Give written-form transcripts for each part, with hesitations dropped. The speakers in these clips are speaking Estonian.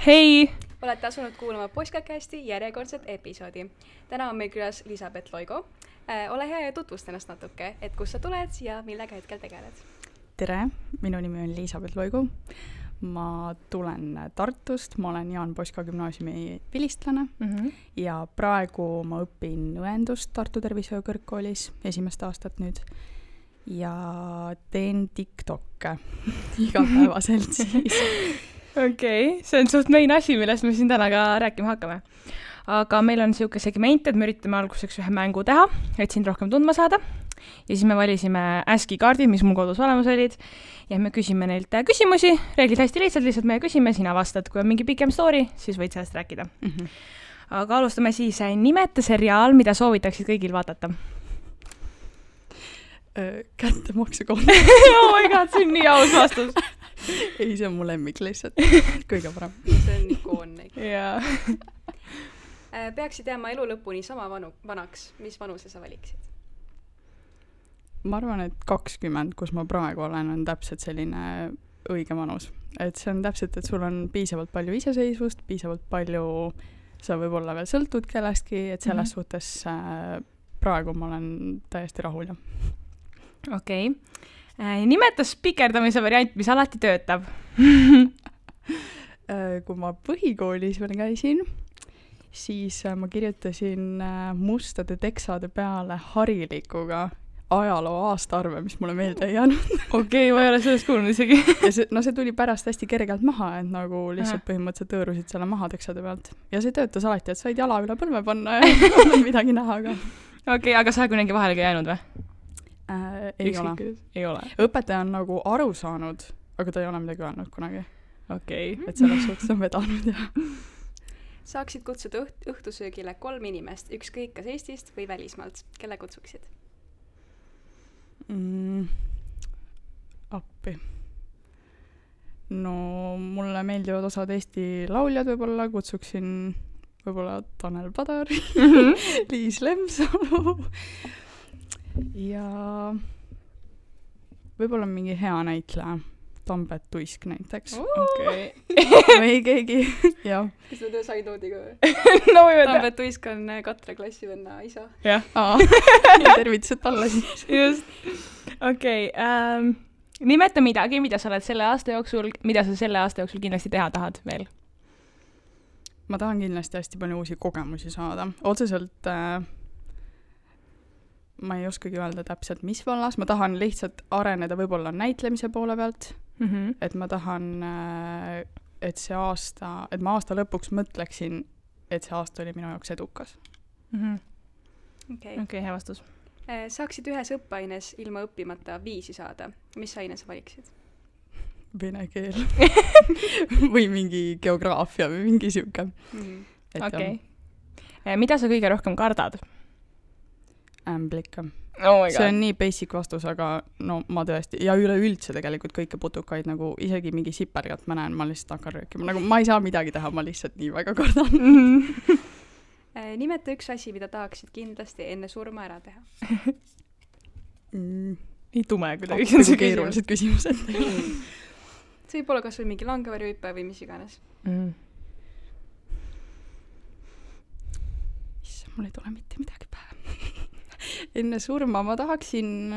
Hei! Olete asunud kuulama Postkasti järjekordset episoodi. Täna on meil külas Elisabeth Loigo. Ole hea ja tutvusta ennast natuke, et kust sa tuled ja millega hetkel tegeled. Tere, minu nimi on Elisabeth Loigo. Ma tulen Tartust, ma olen Jaan Poska gümnaasiumi vilistlane ja praegu ma õpin õendust Tartu Tervishoiukõrgkoolis esimest aastat nüüd ja teen TikTokke igapäevaselt siis. Okei, see on suht main asi, millest me siin täna ka rääkima hakkame. Aga meil on siuke segment, et me üritame alguseks ühe mängu teha, et sind rohkem tundma saada. Ja siis me valisime ASCII kaardid, mis mul kodus olemas olid. Ja me küsime neilt küsimusi. Reeglid hästi lihtsalt me küsime, sina vastad. Kui on mingi pikem story, siis võid sellest rääkida. Aga alustame siis. Nimeta seriaal, mida soovitaksid kõigil vaadata. Kättemaksukonto. Oh my god, see on nii aus vastus. Ei, see on mu lemmik lihtsalt. Kõige parem. See on ikoonne. Jaa. Peaksid jääma elu lõpuni sama vanaks. Mis vanuse sa valiksid? Ma arvan, et 20, kus ma praegu olen, on täpselt selline õige vanus. Et see on täpselt, et sul on piisavalt palju iseseisvust, piisavalt palju, sa võib-olla veel sõltud kellestki, et selles suhtes praegu ma olen täiesti rahul. Okei. Nimeta spikerdamise variant, mis alati töötab. Kui ma põhikoolis veel käisin, siis ma kirjutasin mustade teksade peale harilikuga ajaloo aastaarve, mis mulle meelde ei jäänud. Okei, ma ei ole sellest kuulnud isegi. Ja see tuli pärast hästi kergelt maha, et nagu lihtsalt põhimõtteliselt tõõrusid selle maha teksade pealt. Ja see töötas alati, et said jala üle põlve panna ja ei midagi näha. Okei, aga sa kunagi vahele ka jäänud või? Ei ole. Õpetaja on nagu aru saanud, aga ta ei ole midagi öelnud kunagi. Okei. Et selles suhtes on vedanud ja... Saaksid kutsuda õhtusöögile 3 inimest, ükskõik kas Eestist või välismaalt. Kelle kutsuksid? Appi. No mulle meeldivad osad Eesti lauljad võib-olla, kutsuksin võib-olla Tanel Padar, Liis Lemsalu ja võib-olla mingi hea näitleja, Tambet Tuisk näiteks. Okei. Või keegi, jah. Kas me töö said noodiga või? No võime Tambet Tuisk on Katre klassivenna isa. Jah. Tervitused talle siis. Just. Okei. Nimeta midagi, mida sa oled selle aasta jooksul kindlasti teha tahad veel? Ma tahan kindlasti hästi palju uusi kogemusi saada. Otseselt ma ei oskagi öelda täpselt, mis vallas. Ma tahan lihtsalt areneda võib-olla näitlemise poole pealt. Et ma tahan, et ma aasta lõpuks mõtleksin, et see aasta oli minu jaoks edukas. Okei, hea vastus. Saaksid ühes õppeaines ilma õppimata 5 saada. Mis aine sa valiksid? Vene keel. Või mingi geograafia või mingi siuke. Okei. Mida sa kõige rohkem kardad? Ämblika. Oh see on nii basic vastus, aga no ma tõesti, ja üleüldse tegelikult kõike putukaid, nagu isegi mingi sipergat ma näen, ma lihtsalt hakkan röökima. Nagu ma ei saa midagi teha, ma lihtsalt nii väga kardan. Nimeta üks asi, mida tahaksid kindlasti enne surma ära teha. Nii tume, kui ta küsimus. Keerulised küsimused. See võib olla kas või mingi langevarjuhüpe või mis iganes. Issa, mul ei tule mitte midagi pähe. Enne surma ma tahaksin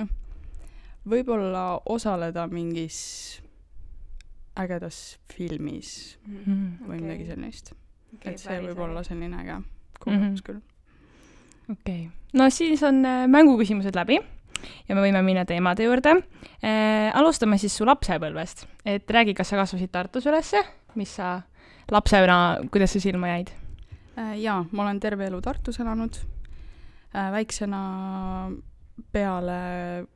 võib-olla osaleda mingis ägedas filmis või midagi sellist. Et see võib olla selline äge kogemus küll. Okei. No siis on mänguküsimused läbi ja me võime minna teemade juurde. Alustame siis su lapsepõlvest. Et räägi, kas sa kasvasid Tartus ülesse? Mis sa lapsena, kuidas sa silma jäid? Jaa, ma olen terve elu Tartus elanud. Väiksena peale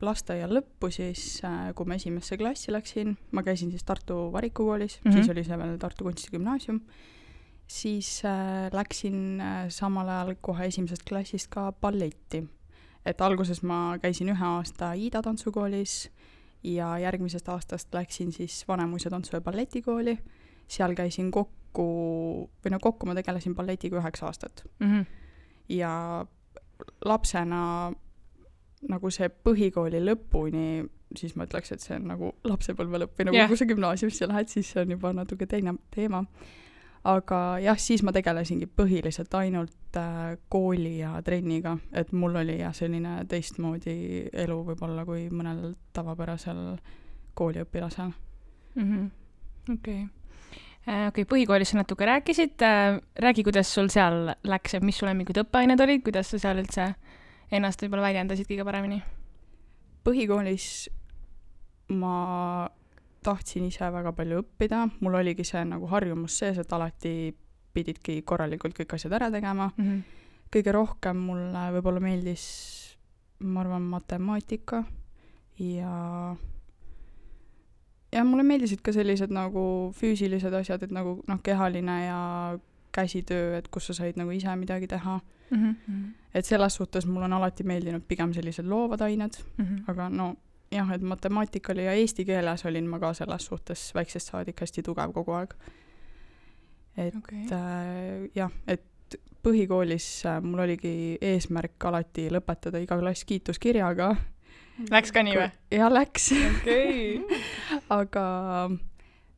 lasteaia lõppu siis, kui ma esimesse klassi läksin, ma käisin siis Tartu Varikukoolis, siis oli see veel Tartu Kunstigümnaasium, siis läksin samal ajal kohe esimesest klassist ka balletti. Et alguses ma käisin 1 aasta Iida tantsukoolis ja järgmisest aastast läksin siis Vanemuise tantsu- ja balletikooli. Seal käisin kokku ma tegelesin balletiga 9 aastat. Ja lapsena nagu see põhikooli lõpuni, siis ma ütleks, et see on nagu lapsepõlve lõpp või nagu kui sa gümnaasiumisse lähed, siis see on juba natuke teine teema. aga jah, siis ma tegelesingi põhiliselt ainult kooli ja trenniga, et mul oli jah selline teistmoodi elu võib-olla kui mõnel tavapärasel kooliõpilasel. Okei, põhikoolis sa natuke rääkisid, räägi, kuidas sul seal läks, et mis sul mingid õppeained olid, kuidas sa seal üldse ennast võib-olla väljendasid kõige paremini? Põhikoolis ma tahtsin ise väga palju õppida, mul oligi see nagu harjumus sees, et alati pididki korralikult kõik asjad ära tegema. Kõige rohkem mulle võib-olla meeldis, ma arvan, matemaatika ja mulle meeldisid ka sellised nagu füüsilised asjad, et nagu kehaline ja käsitöö, et kus sa said nagu ise midagi teha. Et selles suhtes mul on alati meeldinud pigem sellised loovad ained, aga no jah, et matemaatikali ja eesti keeles olin ma ka selles suhtes väiksest saadik hästi tugev kogu aeg. Et jah, et põhikoolis mul oligi eesmärk alati lõpetada iga klass kiituskirjaga. Läks ka nii või? Ja läks. Aga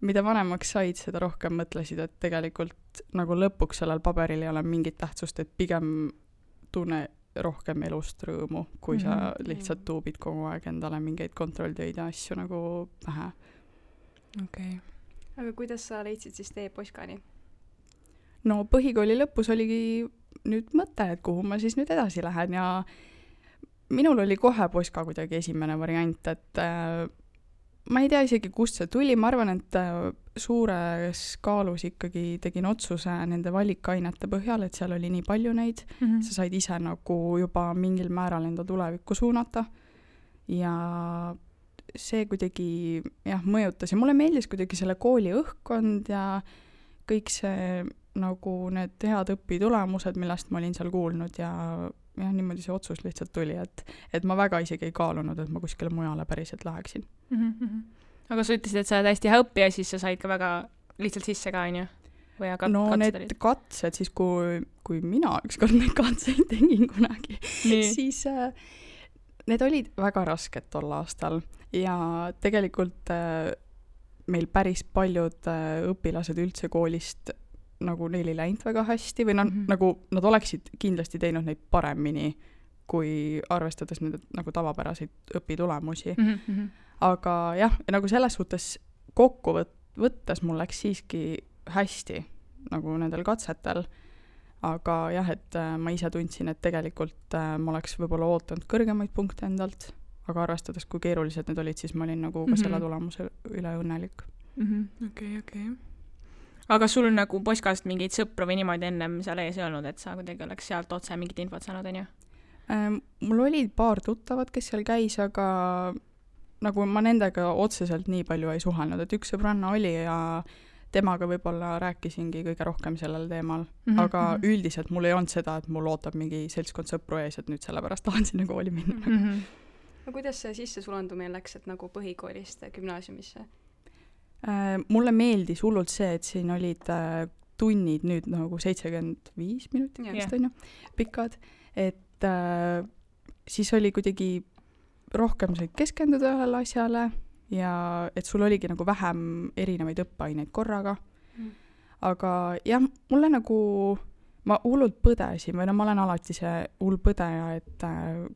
mida vanemaks said, seda rohkem mõtlesid, et tegelikult nagu lõpuks sellel paberil ei ole mingit tähtsust, et pigem tunne rohkem elust rõõmu, kui sa lihtsalt tuubid kogu aeg endale mingeid kontrolltöid ja asju nagu pähe. Aga kuidas sa leidsid siis tee Poskani? No põhikooli lõpus oligi nüüd mõte, et kuhu ma siis nüüd edasi lähen ja minul oli kohe Poska kuidagi esimene variant, et ma ei tea isegi, kust see tuli, ma arvan, et suures kaalus ikkagi tegin otsuse nende valikainete põhjal, et seal oli nii palju neid, sa said ise nagu juba mingil määral enda tulevikku suunata ja see kuidagi jah, mõjutas ja mulle meeldis kuidagi selle kooli õhkkond ja kõik see nagu need head õpitulemused, millest ma olin seal kuulnud ja niimoodi see otsus lihtsalt tuli, et ma väga isegi ei kaalunud, et ma kuskile mujale päriselt läheksin. Aga sa ütlesid, et sa oled hästi hea õppija, siis sa said ka väga lihtsalt sisse ka, on ju? No need katsed, siis kui mina ükskord neid katseid tegin kunagi, siis need olid väga rasked tol aastal ja tegelikult meil päris paljud õpilased üldse koolist nagu neil ei läinud väga hästi või nagu nad oleksid kindlasti teinud neid paremini, kui arvestades nende nagu tavapäraseid õpitulemusi. Aga jah, nagu selles suhtes kokku võttes mul läks siiski hästi nagu nendel katsetel. Aga jah, et ma ise tundsin, et tegelikult ma oleks võib-olla ootanud kõrgemaid punkte endalt, aga arvestades, kui keerulised need olid, siis ma olin nagu ka selle tulemuse üle õnnelik. Okei. Aga sul nagu Poskast mingeid sõpru või niimoodi ennem seal ees ei olnud, et sa kuidagi oleks sealt otse mingit infot saanud, on ju? Mul oli paar tuttavat, kes seal käis, aga nagu ma nendega otseselt nii palju ei suhelnud, et üks sõbranna oli ja temaga võib-olla rääkisingi kõige rohkem sellel teemal, aga üldiselt mul ei olnud seda, et mul ootab mingi seltskond sõpru ees, et nüüd sellepärast tahan sinna kooli minna. No kuidas see sissesulandumine läks, et nagu põhikoolist gümnaasiumisse? Mulle meeldis hullult see, et siin olid tunnid nüüd nagu 75 minutit, on ju, pikad, et siis oli kuidagi rohkem said keskenduda ühele asjale ja et sul oligi nagu vähem erinevaid õppeaineid korraga. Aga jah, mulle nagu, ma hullult põdesin või ma olen alati see hull põdeja, et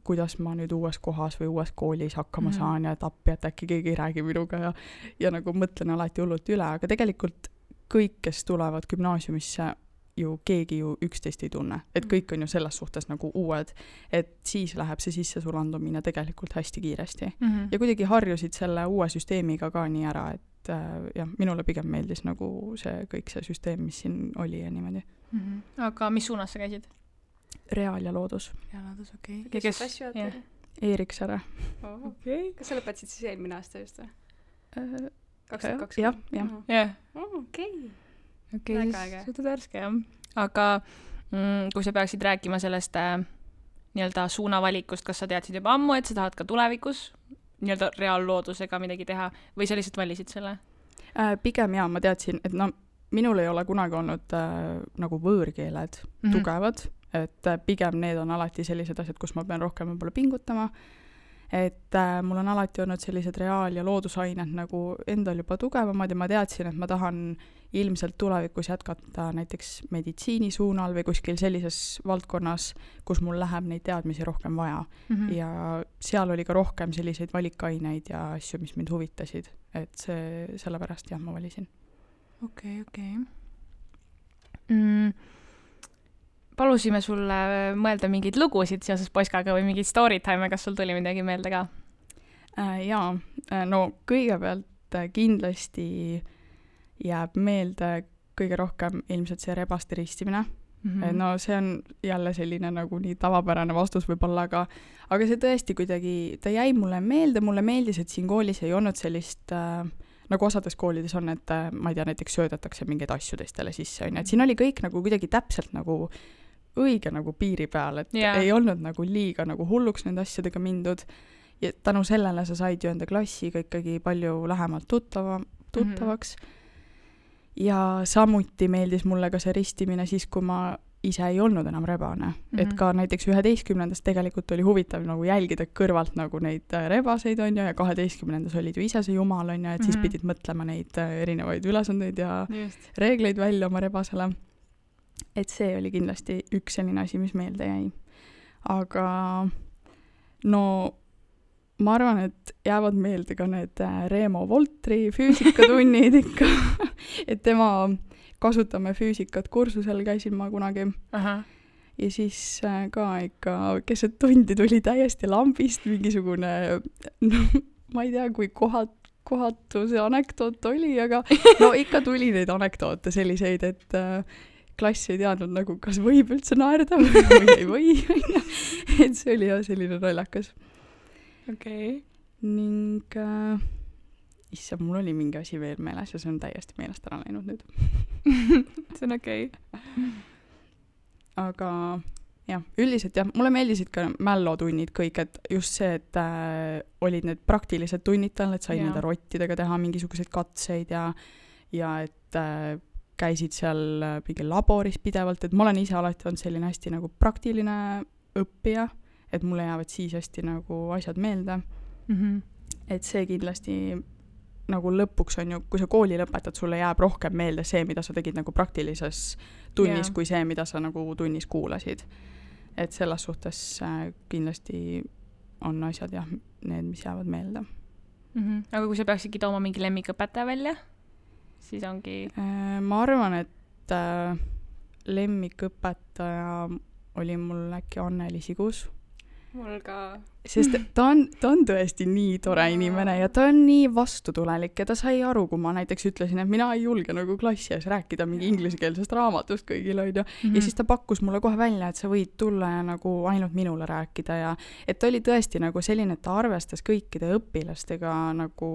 kuidas ma nüüd uues kohas või uues koolis hakkama saan ja et appi, et äkki keegi ei räägi minuga ja nagu mõtlen alati hullult üle, aga tegelikult kõik, kes tulevad gümnaasiumisse, ju keegi ju üksteist ei tunne, et kõik on ju selles suhtes nagu uued, et siis läheb see sissesulandumine tegelikult hästi kiiresti ja kuidagi harjusid selle uue süsteemiga ka nii ära, et jah, minule pigem meeldis nagu see kõik see süsteem, mis siin oli ja niimoodi. Aga mis suunas sa käisid? Reaal ja loodus. Loodus, okei. Kes klassi oled? Eeriksere. Kas sa lõpetasid siis eelmine aasta just või? 2020? Jah. Okei, siis suhtad värske, jah. Aga kui sa peaksid rääkima sellest nii-öelda suunavalikust, kas sa teadsid juba ammu, et sa tahad ka tulevikus nii-öelda reaalloodusega midagi teha või sa lihtsalt valisid selle? Pigem jaa, ma teadsin, et minul ei ole kunagi olnud nagu võõrkeeled tugevad, et pigem need on alati sellised asjad, kus ma pean rohkem võib-olla pingutama, et mul on alati olnud sellised reaal- ja loodusained nagu endal juba tugevamad ja ma teadsin, et ma tahan ilmselt tulevikus jätkata näiteks meditsiini suunal või kuskil sellises valdkonnas, kus mul läheb neid teadmisi rohkem vaja. Ja seal oli ka rohkem selliseid valikaineid ja asju, mis mind huvitasid. Et see, sellepärast jah, ma valisin. Okei. Palusime sulle mõelda mingeid lugusid seoses Poskaga või mingeid story time, kas sul tuli midagi meelde ka? Jaa, no kõigepealt kindlasti jääb meelde kõige rohkem ilmselt see rebaste ristimine. No see on jälle selline nagu nii tavapärane vastus võib-olla, aga see tõesti kuidagi, ta jäi mulle meeldis, et siin koolis ei olnud sellist, nagu osades koolides on, et ma ei tea, näiteks söödetakse mingeid asju teistele sisse, et siin oli kõik nagu kuidagi täpselt nagu õige nagu piiri peal, et ei olnud nagu liiga nagu hulluks nende asjadega mindud ja tänu sellele sa said ju enda klassiga ikkagi palju lähemalt tuttavaks. Ja samuti meeldis mulle ka see ristimine siis, kui ma ise ei olnud enam rebane. Et ka näiteks 11. tegelikult oli huvitav nagu jälgida kõrvalt nagu neid rebaseid on ja 12. olid ju ise see jumal on ja et siis pidid mõtlema neid erinevaid ülesandeid ja reegleid välja oma rebasele. Et see oli kindlasti üks selline asi, mis meelde jäi. Aga no ma arvan, et jäävad meelde ka need Reemo Voltri füüsikatunnid ikka. Et tema kasutame füüsikat kursusel käisin ma kunagi. Ja siis ka ikka keset tundi tuli täiesti lambist mingisugune, no, ma ei tea, kui kohatu see anekdoot oli, aga no ikka tuli neid anekdoote selliseid, et klass ei teadnud nagu, kas võib üldse naerda või ei või. Et see oli jah selline naljakas. Okei. Ning issand, mul oli mingi asi veel meeles ja see on täiesti meelest ära läinud nüüd. See on okei. Aga jah, üldiselt jah, mulle meeldisid ka mällotunnid kõik, et just see, et olid need praktilised tunnid tal, et sai nende rottidega teha mingisuguseid katseid ja et käisid seal mingi laboris pidevalt, et ma olen ise alati olnud selline hästi nagu praktiline õppija, et mulle jäävad siis hästi nagu asjad meelde. Et see kindlasti nagu lõpuks on ju, kui sa kooli lõpetad, sulle jääb rohkem meelde see, mida sa tegid nagu praktilises tunnis, kui see, mida sa nagu tunnis kuulasid. Et selles suhtes kindlasti on asjad jah, need, mis jäävad meelde. Aga kui sa peaksidki tooma mingi lemmikõpetaja välja, siis ongi... Ma arvan, et lemmikõpetaja oli mul äkki Anneli Sigus. Mul ka. Sest ta on tõesti nii tore inimene ja ta on nii vastutulelik ja ta sai aru, kui ma näiteks ütlesin, et mina ei julge nagu klassi ees rääkida mingi ingliskeelsest raamatust kõigile ja siis ta pakkus mulle kohe välja, et sa võid tulla ja nagu ainult minule rääkida ja et ta oli tõesti nagu selline, et ta arvestas kõikide õpilastega nagu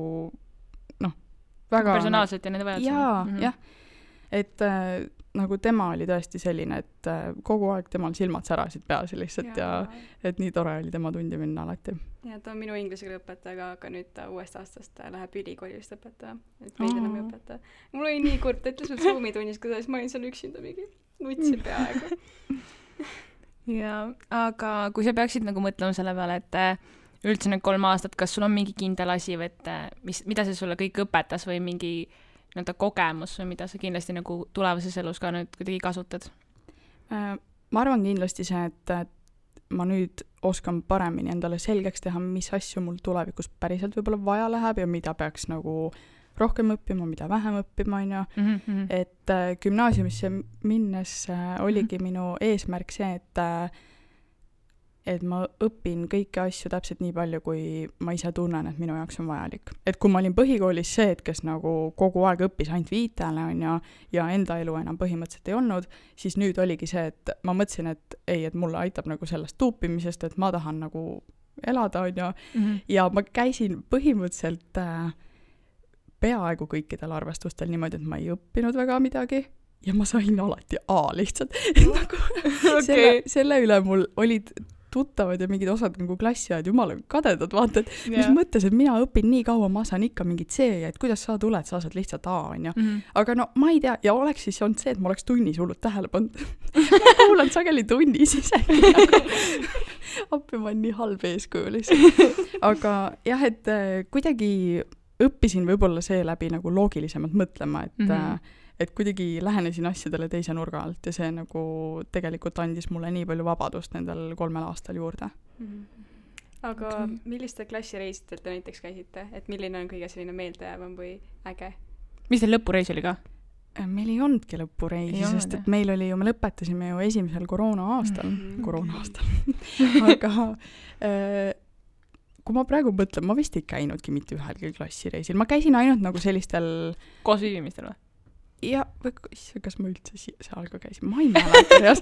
noh, väga personaalselt ja nende vajadused. Jah, et nagu tema oli tõesti selline, et kogu aeg temal silmad särasid peas lihtsalt ja et nii tore oli tema tundi minna alati. Ja ta on minu inglise keele õpetaja, aga nüüd ta uuest aastast läheb ülikoolist õpetaja, et meid enam ei õpetaja. Mul oli nii kurb, ta ütles mul Zoomi tunnis, kuidas ma olin seal üksinda mingi nutsin peaaegu. Ja, aga kui sa peaksid nagu mõtlema selle peale, et üldse need 3 aastat, kas sul on mingi kindel asi või et mida see sulle kõik õpetas või mingi nii-öelda kogemus või mida sa kindlasti nagu tulevases elus ka nüüd kuidagi kasutad? Ma arvan kindlasti see, et ma nüüd oskan paremini endale selgeks teha, mis asju mul tulevikus päriselt võib-olla vaja läheb ja mida peaks nagu rohkem õppima, mida vähem õppima, on ju. Et gümnaasiumisse minnes oligi minu eesmärk see, et ma õpin kõiki asju täpselt nii palju, kui ma ise tunnen, et minu jaoks on vajalik. Et kui ma olin põhikoolis see, et kes nagu kogu aeg õppis ainult viitele on ja enda elu enam põhimõtteliselt ei olnud, siis nüüd oligi see, et ma mõtlesin, et ei, et mulle aitab nagu sellest tuupimisest, et ma tahan nagu elada on ja ma käisin põhimõtteliselt peaaegu kõikidel arvestustel niimoodi, et ma ei õppinud väga midagi ja ma sain alati A lihtsalt. Nagu selle üle mul olid tuttavad ja mingid osad nagu klassiajad jumala kadedad, vaata, et mis mõttes, et mina õpin nii kaua, ma saan ikka mingit C ja et kuidas sa tuled, sa saad lihtsalt A, on ju. Aga no ma ei tea, ja oleks siis olnud see, et ma oleks tunnis hullult tähele pannud. ma kuulan sageli tunnis isegi nagu. Appi, ma olen nii halb eeskuju lihtsalt. Aga jah, et kuidagi õppisin võib-olla seeläbi nagu loogilisemalt mõtlema, et kuidagi lähenesin asjadele teise nurga alt ja see nagu tegelikult andis mulle nii palju vabadust nendel 3 aastal juurde. Aga millistel klassireisidel te näiteks käisite? Et milline on kõige selline meeldejäävam või äge? Mis teil lõpureis oli ka? Meil ei olnudki lõpureisi, sest et meil oli ju, me lõpetasime ju esimesel koroona-aastal. Aga kui ma praegu mõtlen, ma vist ei käinudki mitte ühelgi klassireisil. Ma käisin ainult nagu sellistel... Koos viibimistel või? Ja, kas ma üldse seal ka käisin? Ma ei mäleta,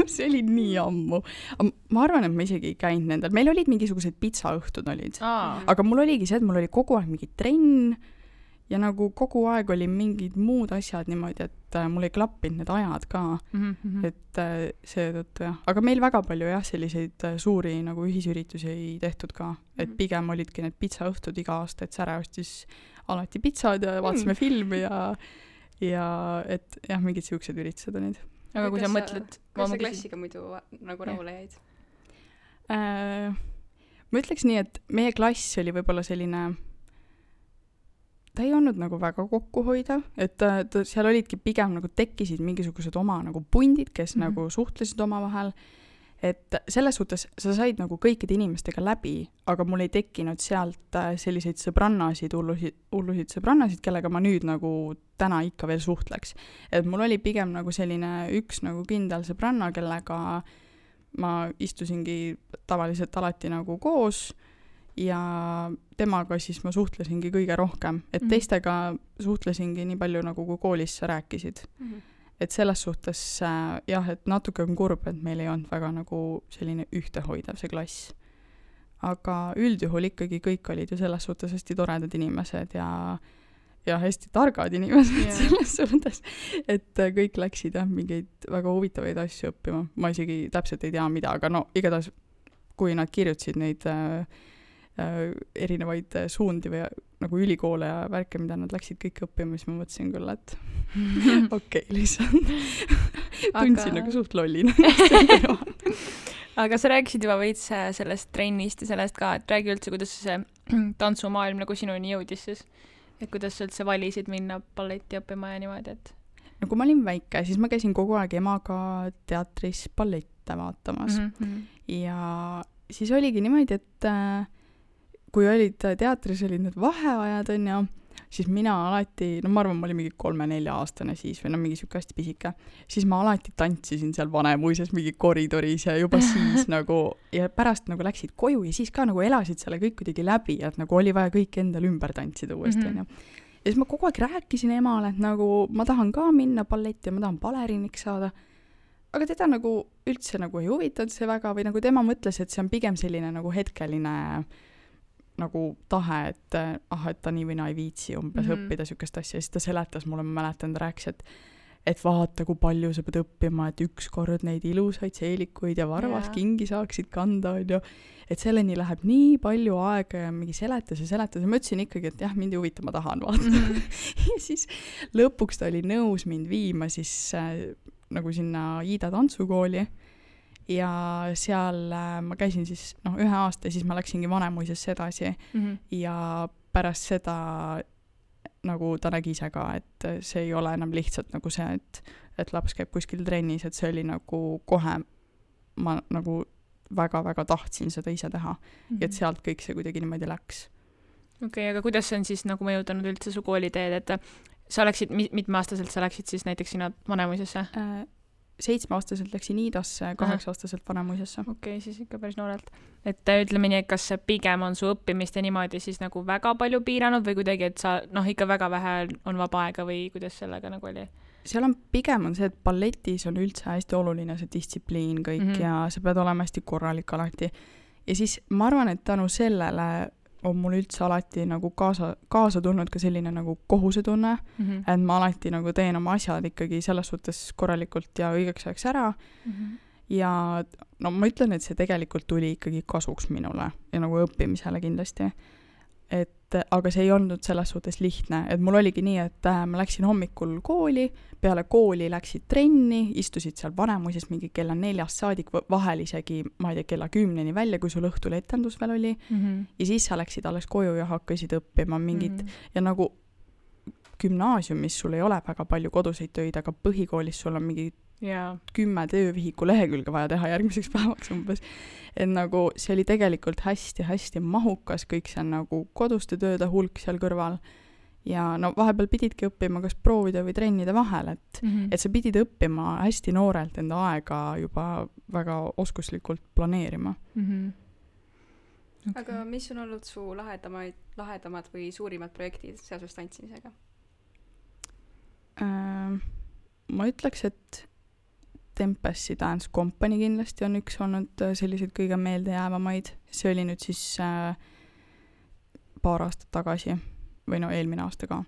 see oli nii ammu. Ma arvan, et ma isegi ei käinud nendel. Meil olid mingisugused pitsaõhtud olid. Aga mul oligi see, et mul oli kogu aeg mingi trenn ja nagu kogu aeg oli mingid muud asjad niimoodi, et mul ei klappinud need ajad ka. Et seetõttu jah. Aga meil väga palju jah, selliseid suuri nagu ühisüritusi ei tehtud ka. Et pigem olidki need pitsaõhtud iga aasta, et Säre ostis alati pitsad ja vaatasime filmi ja et jah, mingid siuksed üritused olid. Aga kui sa mõtled... Kas sa klassiga muidu nagu rahule jäid? Ma ütleks nii, et meie klass oli võib-olla selline... Ta ei olnud nagu väga kokkuhoidav, et seal olidki pigem nagu tekkisid mingisugused oma nagu pundid, kes nagu suhtlesid omavahel. Et selles suhtes sa said nagu kõikide inimestega läbi, aga mul ei tekkinud sealt selliseid sõbrannasid, hullusid sõbrannasid, kellega ma nüüd nagu täna ikka veel suhtleks. Et mul oli pigem nagu selline üks nagu kindel sõbranna, kellega ma istusingi tavaliselt alati nagu koos ja temaga siis ma suhtlesingi kõige rohkem. Et teistega suhtlesingi nii palju nagu kui koolis sa rääkisid. Et selles suhtes jah, et natuke on kurb, et meil ei olnud väga nagu selline ühtehoidav see klass. Aga üldjuhul ikkagi kõik olid ju selles suhtes hästi toredad inimesed ja hästi targad inimesed selles suhtes, et kõik läksid jah mingeid väga huvitavaid asju õppima. Ma isegi täpselt ei tea mida, aga no igatahes kui nad kirjutasid neid erinevaid suundi või nagu ülikoole ja värke, mida nad läksid kõik õppima, siis ma mõtlesin küll, et okei, lihtsalt tundsin nagu suht lollina. Aga sa rääkisid juba veits sellest trennist ja sellest ka, et räägi üldse, kuidas see tantsumaailm nagu sinuni jõudis siis, et kuidas sa üldse valisid minna balletti õppima ja niimoodi, et... No kui ma olin väike, siis ma käisin kogu aeg emaga teatris ballette vaatamas ja siis oligi niimoodi, et kui olid teatris, olid need vaheajad, on ja, siis mina alati, no ma arvan, ma olin mingi 3-4 aastane siis või no mingi siuke hästi pisike, siis ma alati tantsisin seal Vanemuises mingi koridoris ja juba siis nagu, ja pärast nagu läksid koju ja siis ka nagu elasid selle kõik kuidagi läbi, et nagu oli vaja kõik endal ümber tantsida uuesti, on ja. Ja siis ma kogu aeg rääkisin emale, et nagu ma tahan ka minna balletti ja ma tahan baleriiniks saada, aga teda nagu üldse nagu ei huvitanud see väga või nagu tema mõtles, et see on pigem selline nagu hetkeline nagu tahe, et et ta nii või naa ei viitsi umbes õppida siukest asja. Ja siis ta seletas mulle, ma mäletan, ta rääkis, et vaata, kui palju sa pead õppima, et ükskord neid ilusaid seelikuid ja varvaskingi saaksid kanda, on ju. Et selleni läheb nii palju aega ja mingi seletas ja ma ütlesin ikkagi, et jah, mind ei huvita, ma tahan vaata. Ja siis lõpuks ta oli nõus mind viima siis nagu sinna Iida tantsukooli ja seal ma käisin siis 1 aasta ja siis ma läksingi Vanemuisesse edasi ja pärast seda nagu ta nägi ise ka, et see ei ole enam lihtsalt nagu see, et laps käib kuskil trennis, et see oli nagu kohe ma nagu väga-väga tahtsin seda ise teha ja et sealt kõik see kuidagi niimoodi läks. Okei, aga kuidas see on siis nagu mõjutanud üldse su kooliteed, et sa läksid, mitmeaastaselt sa läksid siis näiteks sinna Vanemuisesse? 7-aastaselt läksin Iidasse, 8-aastaselt Vanemuisesse. Okei, siis ikka päris noorelt. Et ütleme nii, et kas see pigem on su õppimist ja niimoodi siis nagu väga palju piiranud või kuidagi, et sa ikka väga vähe on vaba aega või kuidas sellega nagu oli? Seal on pigem on see, et balletis on üldse hästi oluline see distsipliin kõik ja sa pead olema hästi korralik alati. Ja siis ma arvan, et tänu sellele on mul üldse alati nagu kaasa tulnud ka selline nagu kohusetunne, et ma alati nagu teen oma asjad ikkagi selles suhtes korralikult ja õigeks ajaks ära. Ja no ma ütlen, et see tegelikult tuli ikkagi kasuks minule ja nagu õppimisele kindlasti. aga see ei olnud selles suhtes lihtne, et mul oligi nii, et ma läksin hommikul kooli, peale kooli läksid trenni, istusid seal Vanemuises mingi kella 4-st saadik, vahel isegi, ma ei tea, kella 10-ni välja, kui sul õhtul etendus veel oli, ja siis sa läksid alles koju ja hakkasid õppima mingit, ja nagu gümnaasiumis sul ei ole väga palju koduseid töid, aga põhikoolis sul on mingi 10 töövihiku lehekülge vaja teha järgmiseks päevaks umbes. Et nagu see oli tegelikult hästi-hästi mahukas, kõik see nagu koduste tööde hulk seal kõrval. Ja no vahepeal pididki õppima kas proovida või trennide vahel, et sa pidid õppima hästi noorelt enda aega juba väga oskuslikult planeerima. Okay. Aga mis on olnud su lahedamad või suurimad projektid seoses tantsimisega? Ma ütleks, et Tempesti Dance Company kindlasti on üks olnud selliseid kõige meeldejäävamaid. See oli nüüd siis paar aastat tagasi või no eelmine aasta ka.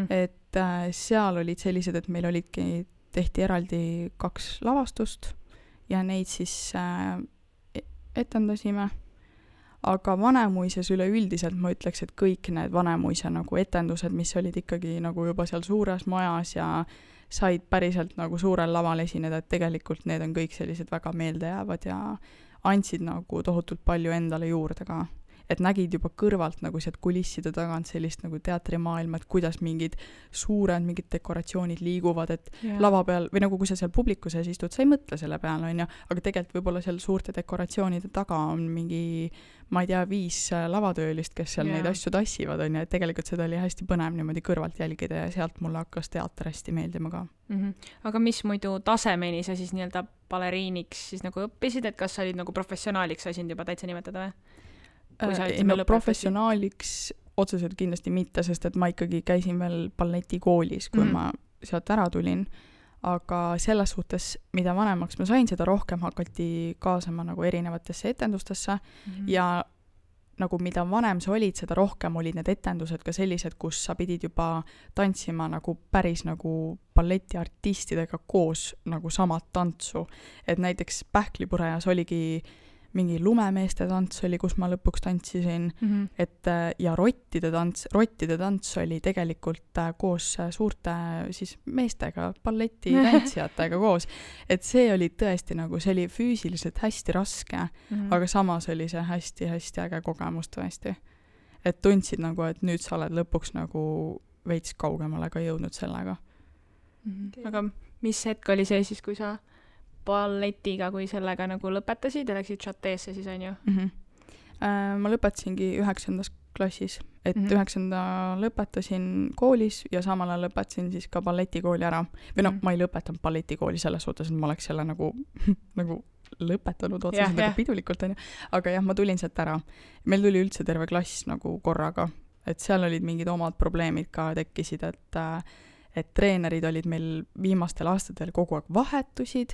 Et seal olid sellised, et meil tehti eraldi 2 lavastust ja neid siis etendasime. Aga Vanemuises üleüldiselt ma ütleks, et kõik need Vanemuise nagu etendused, mis olid ikkagi nagu juba seal suures majas ja said päriselt nagu suurel laval esineda, et tegelikult need on kõik sellised väga meeldejäävad ja andsid nagu tohutult palju endale juurde ka. Et nägid juba kõrvalt nagu sealt kulisside tagant sellist nagu teatrimaailma, et kuidas mingid mingid dekoratsioonid liiguvad, et lava peal, või nagu kui sa seal publiku sees istud, sa ei mõtle selle peale, on ju, aga tegelikult võib-olla seal suurte dekoratsioonide taga on mingi, ma ei tea, 5 lavatöölist, kes seal neid asju tassivad, on ju, et tegelikult seda oli hästi põnev niimoodi kõrvalt jälgida ja sealt mulle hakkas teater hästi meeldima ka. Aga mis muidu tasemeni sa siis nii-öelda baleriiniks siis nagu õppisid, et kas sa olid nagu professionaaliks sa sind juba täitsa nimetada või? Professionaaliks otseselt kindlasti mitte, sest et ma ikkagi käisin veel balletikoolis, kui ma sealt ära tulin, aga selles suhtes, mida vanemaks ma sain, seda rohkem hakati kaasama nagu erinevatesse etendustesse ja nagu mida vanem sa olid, seda rohkem olid need etendused ka sellised, kus sa pidid juba tantsima nagu päris nagu balletiartistidega koos nagu samat tantsu, et näiteks Pähklipurejas oligi mingi lumemeeste tants oli, kus ma lõpuks tantsisin, et ja rottide tants oli tegelikult koos suurte siis meestega, balletitantsijatega koos, et see oli tõesti nagu, see oli füüsiliselt hästi raske, aga samas oli see hästi-hästi äge kogemus tõesti. Et tundsid nagu, et nüüd sa oled lõpuks nagu veits kaugemale ka jõudnud sellega. Aga mis hetk oli see siis, kui sa balletiga, kui sellega nagu lõpetasid ja läksid Chateesse siis, on ju? Ma lõpetasingi 9. klassis, et 9. lõpetasin koolis ja samal ajal lõpetasin siis ka balletikooli ära. Või no, ma ei lõpetanud balletikooli selles suhtes, et ma oleks selle nagu lõpetanud otseselt nagu pidulikult, on ju. Aga jah, ma tulin sealt ära. Meil tuli üldse terve klass nagu korraga, et seal olid mingid omad probleemid ka tekkisid, et treenerid olid meil viimastel aastatel kogu aeg vahetusid,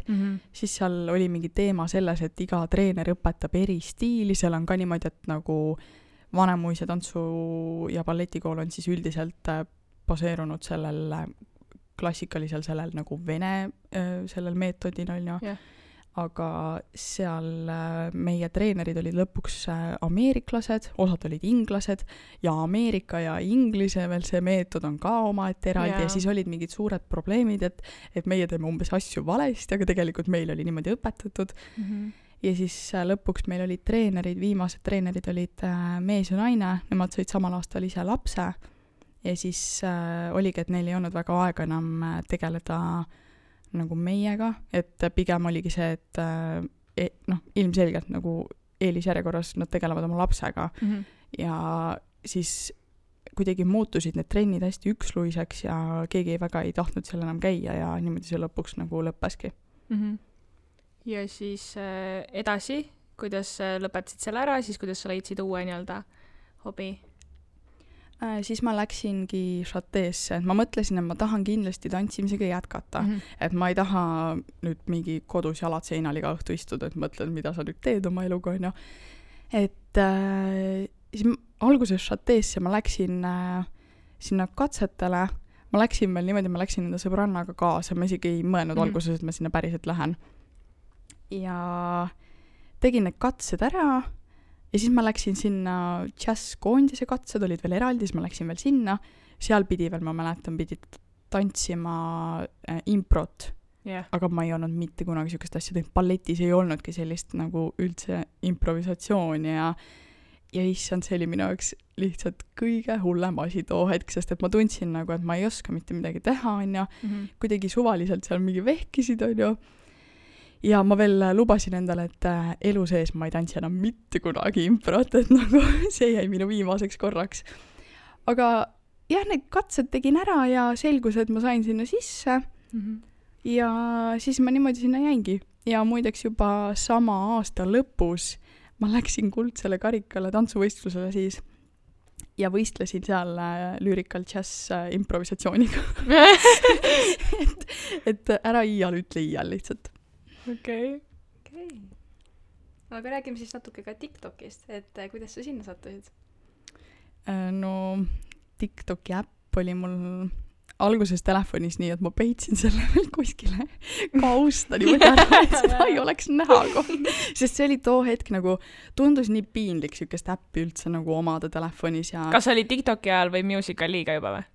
siis seal oli mingi teema selles, et iga treener õpetab eri stiili, seal on ka niimoodi, et nagu Vanemuise tantsu- ja balletikool on siis üldiselt baseerunud sellel klassikalisel sellel nagu vene sellel meetodil, on ju. Aga seal meie treenerid olid lõpuks ameeriklased, osad olid inglased ja Ameerika ja Inglise veel see meetod on ka omaette eraldi ja siis olid mingid suured probleemid, et meie teeme umbes asju valesti, aga tegelikult meil oli niimoodi õpetatud. Ja siis lõpuks meil olid treenerid, viimased treenerid olid mees ja naine, nemad said samal aastal ise lapse ja siis oligi, et neil ei olnud väga aega enam tegeleda nagu meiega, et pigem oligi see, et ilmselgelt nagu eelisjärjekorras nad tegelevad oma lapsega ja siis kuidagi muutusid need trennid hästi üksluiseks ja keegi väga ei tahtnud seal enam käia ja niimoodi see lõpuks nagu lõppeski. Ja siis edasi, kuidas lõpetasid selle ära, siis kuidas sa leidsid uue nii-öelda hobi? Siis ma läksingi Chateesse, et ma mõtlesin, et ma tahan kindlasti tantsimisega jätkata, et ma ei taha nüüd mingi kodus jalad seinal iga õhtu istuda, et mõtlen, mida sa nüüd teed oma eluga, on ju. Et siis alguses Chateesse ma läksin sinna katsetele, ma läksin veel niimoodi, ma läksin enda sõbrannaga kaasa, ma isegi ei mõelnud alguses, et ma sinna päriselt lähen. Ja tegin need katsed ära ja siis ma läksin sinna džässkoondise katsed, olid veel eraldi, siis ma läksin veel sinna, seal pidi veel, ma mäletan, pidi tantsima improt, aga ma ei olnud mitte kunagi niisugust asja teinud, balletis ei olnudki sellist nagu üldse improvisatsiooni ja issand, see oli minu jaoks lihtsalt kõige hullem asi too hetk, sest et ma tundsin nagu, et ma ei oska mitte midagi teha, onju, kuidagi suvaliselt seal mingi vehkisid, onju, ja ma veel lubasin endale, et elu sees ma ei tantsi enam mitte kunagi improt, et nagu see jäi minu viimaseks korraks. Aga jah, need katsed tegin ära ja selgus, et ma sain sinna sisse ja siis ma niimoodi sinna jäingi. Ja muideks juba sama aasta lõpus ma läksin kuldsele karikale tantsuvõistlusele siis ja võistlesin seal Lyrical Jazz improvisatsiooniga. et ära iial ütle iial lihtsalt. Okei. Aga räägime siis natuke ka TikTokist, et kuidas sa sinna sattusid? No TikToki äpp oli mul alguses telefonis nii, et ma peitsin selle veel kuskile kausta niimoodi ära, et seda ei oleks näha kohe. Sest see oli too hetk nagu, tundus nii piinlik siukest äppi üldse nagu omada telefonis ja... Kas oli TikToki ajal või Musicaliga juba või?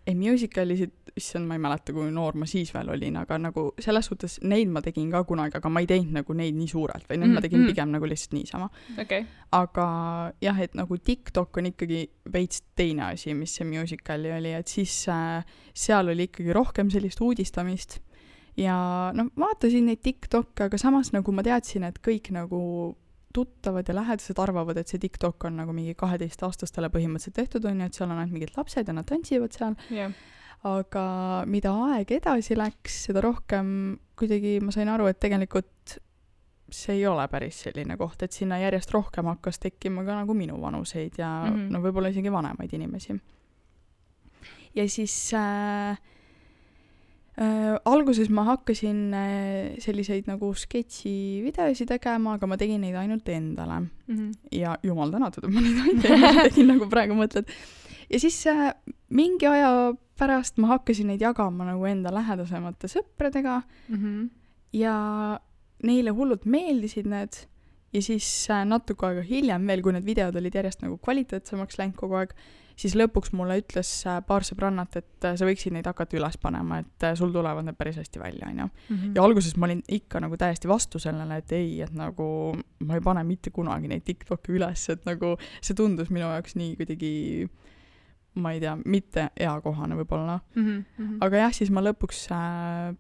Ei, Musicalisid, issand, ma ei mäleta, kui noor ma siis veel olin, aga nagu selles suhtes neid ma tegin ka kunagi, aga ma ei teinud nagu neid nii suurelt, või need ma tegin pigem nagu lihtsalt niisama. Okay. Aga jah, et nagu TikTok on ikkagi veits teine asi, mis see Musicali oli, et siis seal oli ikkagi rohkem sellist uudistamist ja no vaatasin neid TikTokke, aga samas nagu ma teadsin, et kõik nagu tuttavad ja lähedased arvavad, et see TikTok on nagu mingi 12-aastastele põhimõtteliselt tehtud on ja et seal on ainult mingid lapsed ja nad tantsivad seal. Yeah. Aga mida aeg edasi läks, seda rohkem kuidagi ma sain aru, et tegelikult see ei ole päris selline koht, et sinna järjest rohkem hakkas tekkima ka nagu minu vanuseid ja no võib-olla isegi vanemaid inimesi. Ja siis alguses ma hakkasin selliseid nagu sketši-videosi tegema, aga ma tegin neid ainult endale. Ja jumal tänatud, et ma neid ainult endale tegin, nagu praegu mõtled. Ja siis mingi aja pärast ma hakkasin neid jagama nagu enda lähedasemate sõpradega ja neile hullult meeldisid need ja siis natuke aega hiljem veel, kui need videod olid järjest nagu kvaliteetsemaks läinud kogu aeg, siis lõpuks mulle ütles paar sõbrannat, et sa võiksid neid hakata üles panema, et sul tulevad need päris hästi välja, on ju. Ja alguses ma olin ikka nagu täiesti vastu sellele, et ei, et nagu ma ei pane mitte kunagi neid TikToki üles, et nagu see tundus minu jaoks nii kuidagi, ma ei tea, mitte eakohane võib-olla. Aga jah, siis ma lõpuks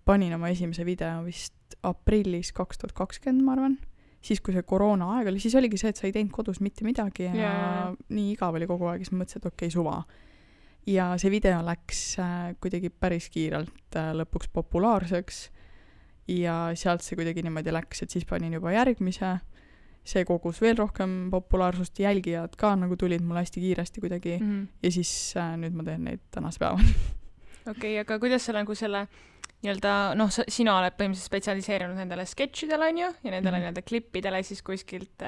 panin oma esimese video vist aprillis 2020, ma arvan. Siis, kui see koroona aeg oli, siis oligi see, et sa ei teinud kodus mitte midagi ja nii igav oli kogu aeg, siis ma mõtlesin, et okei, suva. Ja see video läks kuidagi päris kiirelt lõpuks populaarseks ja sealt see kuidagi niimoodi läks, et siis panin juba järgmise. See kogus veel rohkem populaarsust, jälgijad ka nagu tulid mulle hästi kiiresti kuidagi ja siis nüüd ma teen neid tänase päevani. Okei, aga kuidas sa nagu selle nii-öelda, noh, sina oled põhimõtteliselt spetsialiseerinud nendele sketšidele, on ju, ja nendele nii-öelda klippidele siis kuskilt,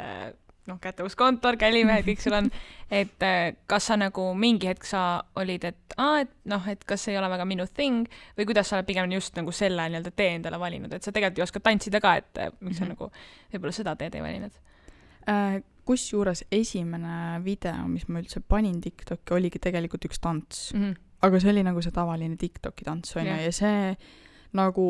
noh, kätevuskontor, kälimehed, kõik sul on, et kas sa nagu mingi hetk sa olid, et noh, et kas ei ole väga minu thing, või kuidas sa oled pigem just nagu selle nii-öelda tee endale valinud, et sa tegelikult ju oskad tantsida ka, et miks sa nagu võib-olla seda teed ei valinud? Kusjuures esimene video, mis ma üldse panin TikToki, oligi tegelikult üks tants. Aga see oli nagu see tavaline TikToki tants, on ju, ja see nagu,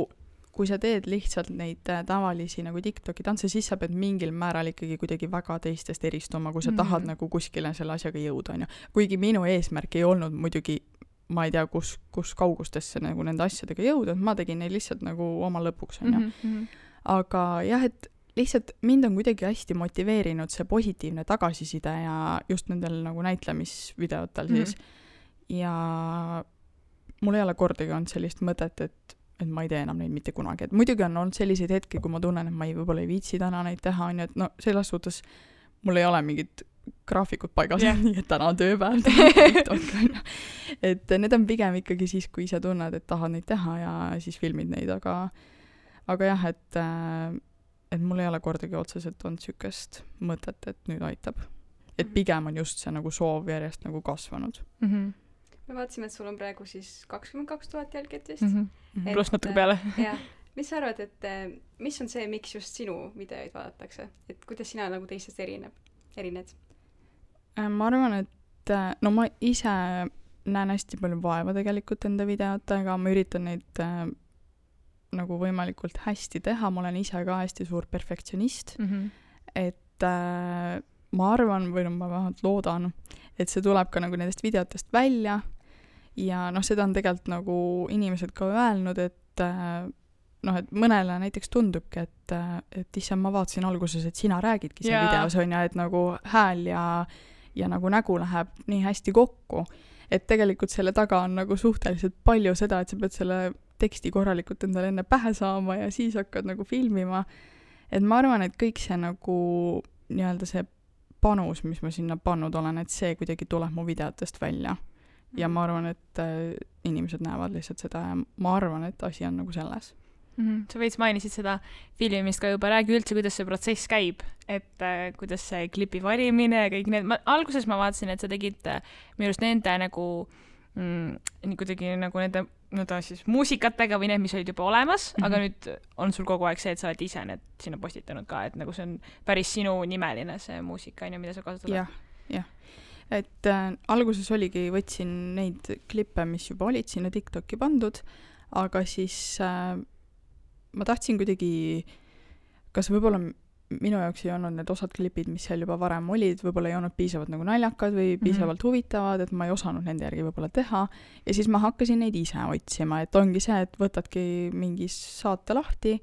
kui sa teed lihtsalt neid tavalisi nagu TikToki tantse, siis sa pead mingil määral ikkagi kuidagi väga teistest eristuma, kui sa tahad nagu kuskile selle asjaga jõuda, on ju. Kuigi minu eesmärk ei olnud muidugi, ma ei tea, kus kaugustesse nagu nende asjadega jõuda, ma tegin neid lihtsalt nagu oma lõpuks, on ju. Aga jah, et lihtsalt mind on kuidagi hästi motiveerinud see positiivne tagasiside ja just nendel nagu näitlemisvideotel siis. Ja mul ei ole kordagi olnud sellist mõtet, et ma ei tee enam neid mitte kunagi. Et muidugi on olnud selliseid hetki, kui ma tunnen, et ma võib-olla ei viitsi täna neid teha, on ju, et no selles suhtes mul ei ole mingit graafikut paigas, nii et täna on tööpäev, et need on pigem ikkagi siis, kui ise tunned, et tahad neid teha ja siis filmid neid, aga jah, et mul ei ole kordagi otseselt olnud sükest mõtet, et nüüd aitab. Et pigem on just see nagu soov järjest nagu kasvanud. Me vaatasime, et sul on praegu siis 22 000 jälgijat vist. Pluss natuke peale. Jah. Mis sa arvad, et mis on see, miks just sinu videoid vaadatakse? Et kuidas sina nagu teistest erineb? erined? Ma arvan, et no ma ise näen hästi palju vaeva tegelikult enda videotega, ma üritan neid nagu võimalikult hästi teha, ma olen ise ka hästi suur perfektsionist, et ma arvan, või no ma vähemalt loodan, et see tuleb ka nagu nendest videotest välja ja noh, seda on tegelikult nagu inimesed ka öelnud, et noh, et mõnele näiteks tundubki, et issand, ma vaatasin alguses, et sina räägidki seal videos, on ja et nagu hääl ja nagu nägu läheb nii hästi kokku, et tegelikult selle taga on nagu suhteliselt palju seda, et sa pead selle teksti korralikult endale enne pähe saama ja siis hakkad nagu filmima. Et ma arvan, et kõik see nagu nii-öelda see panus, mis ma sinna pannud olen, et see kuidagi tuleb mu videotest välja. Ja ma arvan, et inimesed näevad lihtsalt seda ja ma arvan, et asi on nagu selles. Sa veits mainisid seda filmimist ka juba, räägi üldse, kuidas see protsess käib, et kuidas see klipi valimine ja kõik need, alguses ma vaatasin, et sa tegid minu arust nende nagu nii kuidagi nagu nende siis muusikatega või need, mis olid juba olemas, aga nüüd on sul kogu aeg see, et sa oled ise need sinna postitanud ka, et nagu see on päris sinu nimeline see muusika, mida sa kasutad. jah. Et alguses oligi, võtsin neid klippe, mis juba olid sinna TikToki pandud, aga siis ma tahtsin kuidagi, kas võib-olla minu jaoks ei olnud need osad klipid, mis seal juba varem olid, võib-olla ei olnud piisavalt nagu naljakad või piisavalt huvitavad, et ma ei osanud nende järgi võib-olla teha. Ja siis ma hakkasin neid ise otsima, et ongi see, et võtadki mingi saate lahti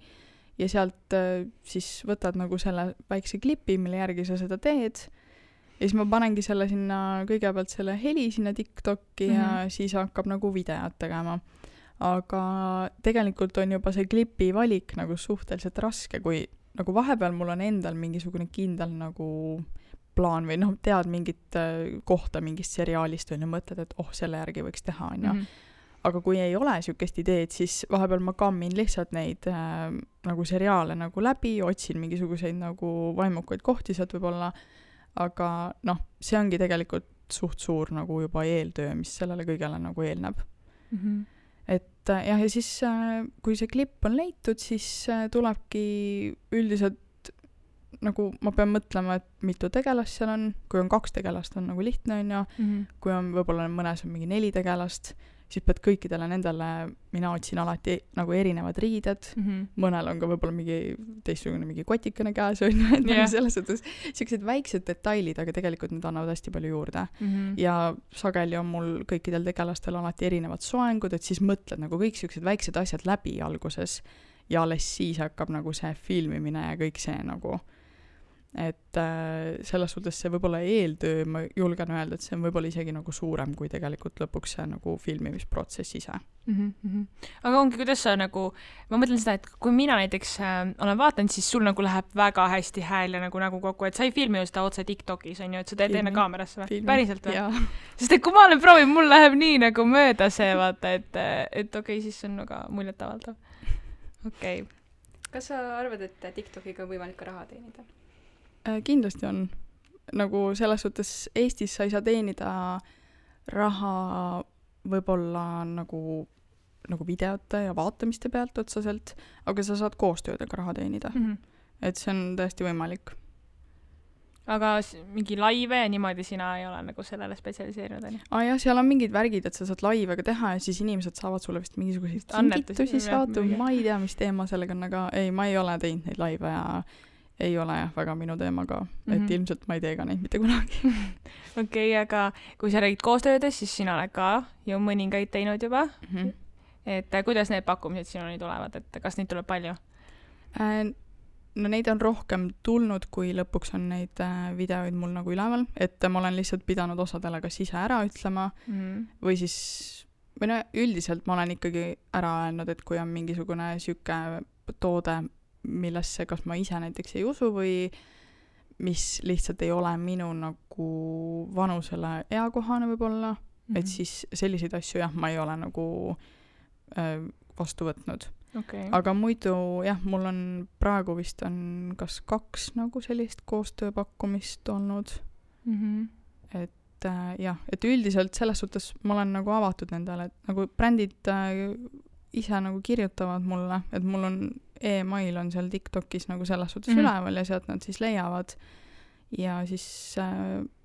ja sealt siis võtad nagu selle väikse klipi, mille järgi sa seda teed. Ja siis ma panengi selle sinna, kõigepealt selle heli sinna TikToki ja siis hakkab nagu videot tegema. Aga tegelikult on juba see klipi valik nagu suhteliselt raske, kui nagu vahepeal mul on endal mingisugune kindel nagu plaan või noh, tead mingit kohta mingist seriaalist või mõtled, et selle järgi võiks teha, on ju. Aga kui ei ole sükest ideed, siis vahepeal ma kammin lihtsalt neid nagu seriaale nagu läbi, otsin mingisuguseid nagu vaimukaid kohti sealt võib-olla, aga noh, see ongi tegelikult suht suur nagu juba eeltöö, mis sellele kõigele nagu eelneb. Et jah, ja siis kui see klipp on leitud, siis tulebki üldiselt nagu ma pean mõtlema, et mitu tegelast seal on, kui on 2 tegelast on nagu lihtne, on ju, kui on võib-olla mõnes on mingi 4 tegelast, siis pead kõikidele nendele, mina otsin alati nagu erinevad riided, mõnel on ka võib-olla mingi teistsugune mingi kotikene käes, on ju, et selles suhtes sellised väiksed detailid, aga tegelikult need annavad hästi palju juurde. Ja sageli on mul kõikidel tegelastel alati erinevad soengud, et siis mõtled nagu kõik sellised väiksed asjad läbi alguses ja alles siis hakkab nagu see filmimine ja kõik see nagu. Et selles suhtes see võib-olla eeltöö, ma julgen öelda, et see on võib-olla isegi nagu suurem, kui tegelikult lõpuks see nagu filmimisprotsess ise. Aga ongi, kuidas sa nagu, ma mõtlen seda, et kui mina näiteks olen vaatanud, siis sul nagu läheb väga hästi hääl ja nagu kokku, et sa ei filmi ju seda otse TikTokis, on ju, et sa teed enne kaamerasse või? Päriselt või? Sest et kui ma olen proovinud, mul läheb nii nagu mööda see, vaata, et okei, siis see on nagu muljetavaldav. Okei. Kas sa arvad, et TikTokiga on võimalik ka raha teenida? Kindlasti on. Nagu selles suhtes Eestis sa ei saa teenida raha võib-olla nagu videote ja vaatamiste pealt otseselt, aga sa saad koostöödega raha teenida. Et see on täiesti võimalik. Aga mingi laive ja niimoodi sina ei ole nagu sellele spetsialiseerinud, on ju? Jah, seal on mingid värgid, et sa saad laivega teha ja siis inimesed saavad sulle vist mingisuguseid kingitusi saada, ma ei tea, mis teema sellega on, aga ei, ma ei ole teinud neid laive ja ei ole jah väga minu teemaga, et ilmselt ma ei tee ka neid mitte kunagi. Okei, aga kui sa räägid koostöödes, siis sina oled ka ju mõningaid teinud juba. Et kuidas need pakkumised sinuni tulevad, et kas neid tuleb palju? No neid on rohkem tulnud, kui lõpuks on neid videoid mul nagu üleval, et ma olen lihtsalt pidanud osadele kas ise ära ütlema või siis, või no üldiselt ma olen ikkagi ära öelnud, et kui on mingisugune süke toode, millesse kas ma ise näiteks ei usu või mis lihtsalt ei ole minu nagu vanusele eakohane võib-olla, et siis selliseid asju jah, ma ei ole nagu vastu võtnud. Aga muidu jah, mul on praegu vist on kas 2 nagu sellist koostööpakkumist olnud. Et jah, et üldiselt selles suhtes ma olen nagu avatud nendele, et nagu brändid ise nagu kirjutavad mulle, et mul on e-mail on seal TikTokis nagu selles suhtes üleval ja sealt nad siis leiavad ja siis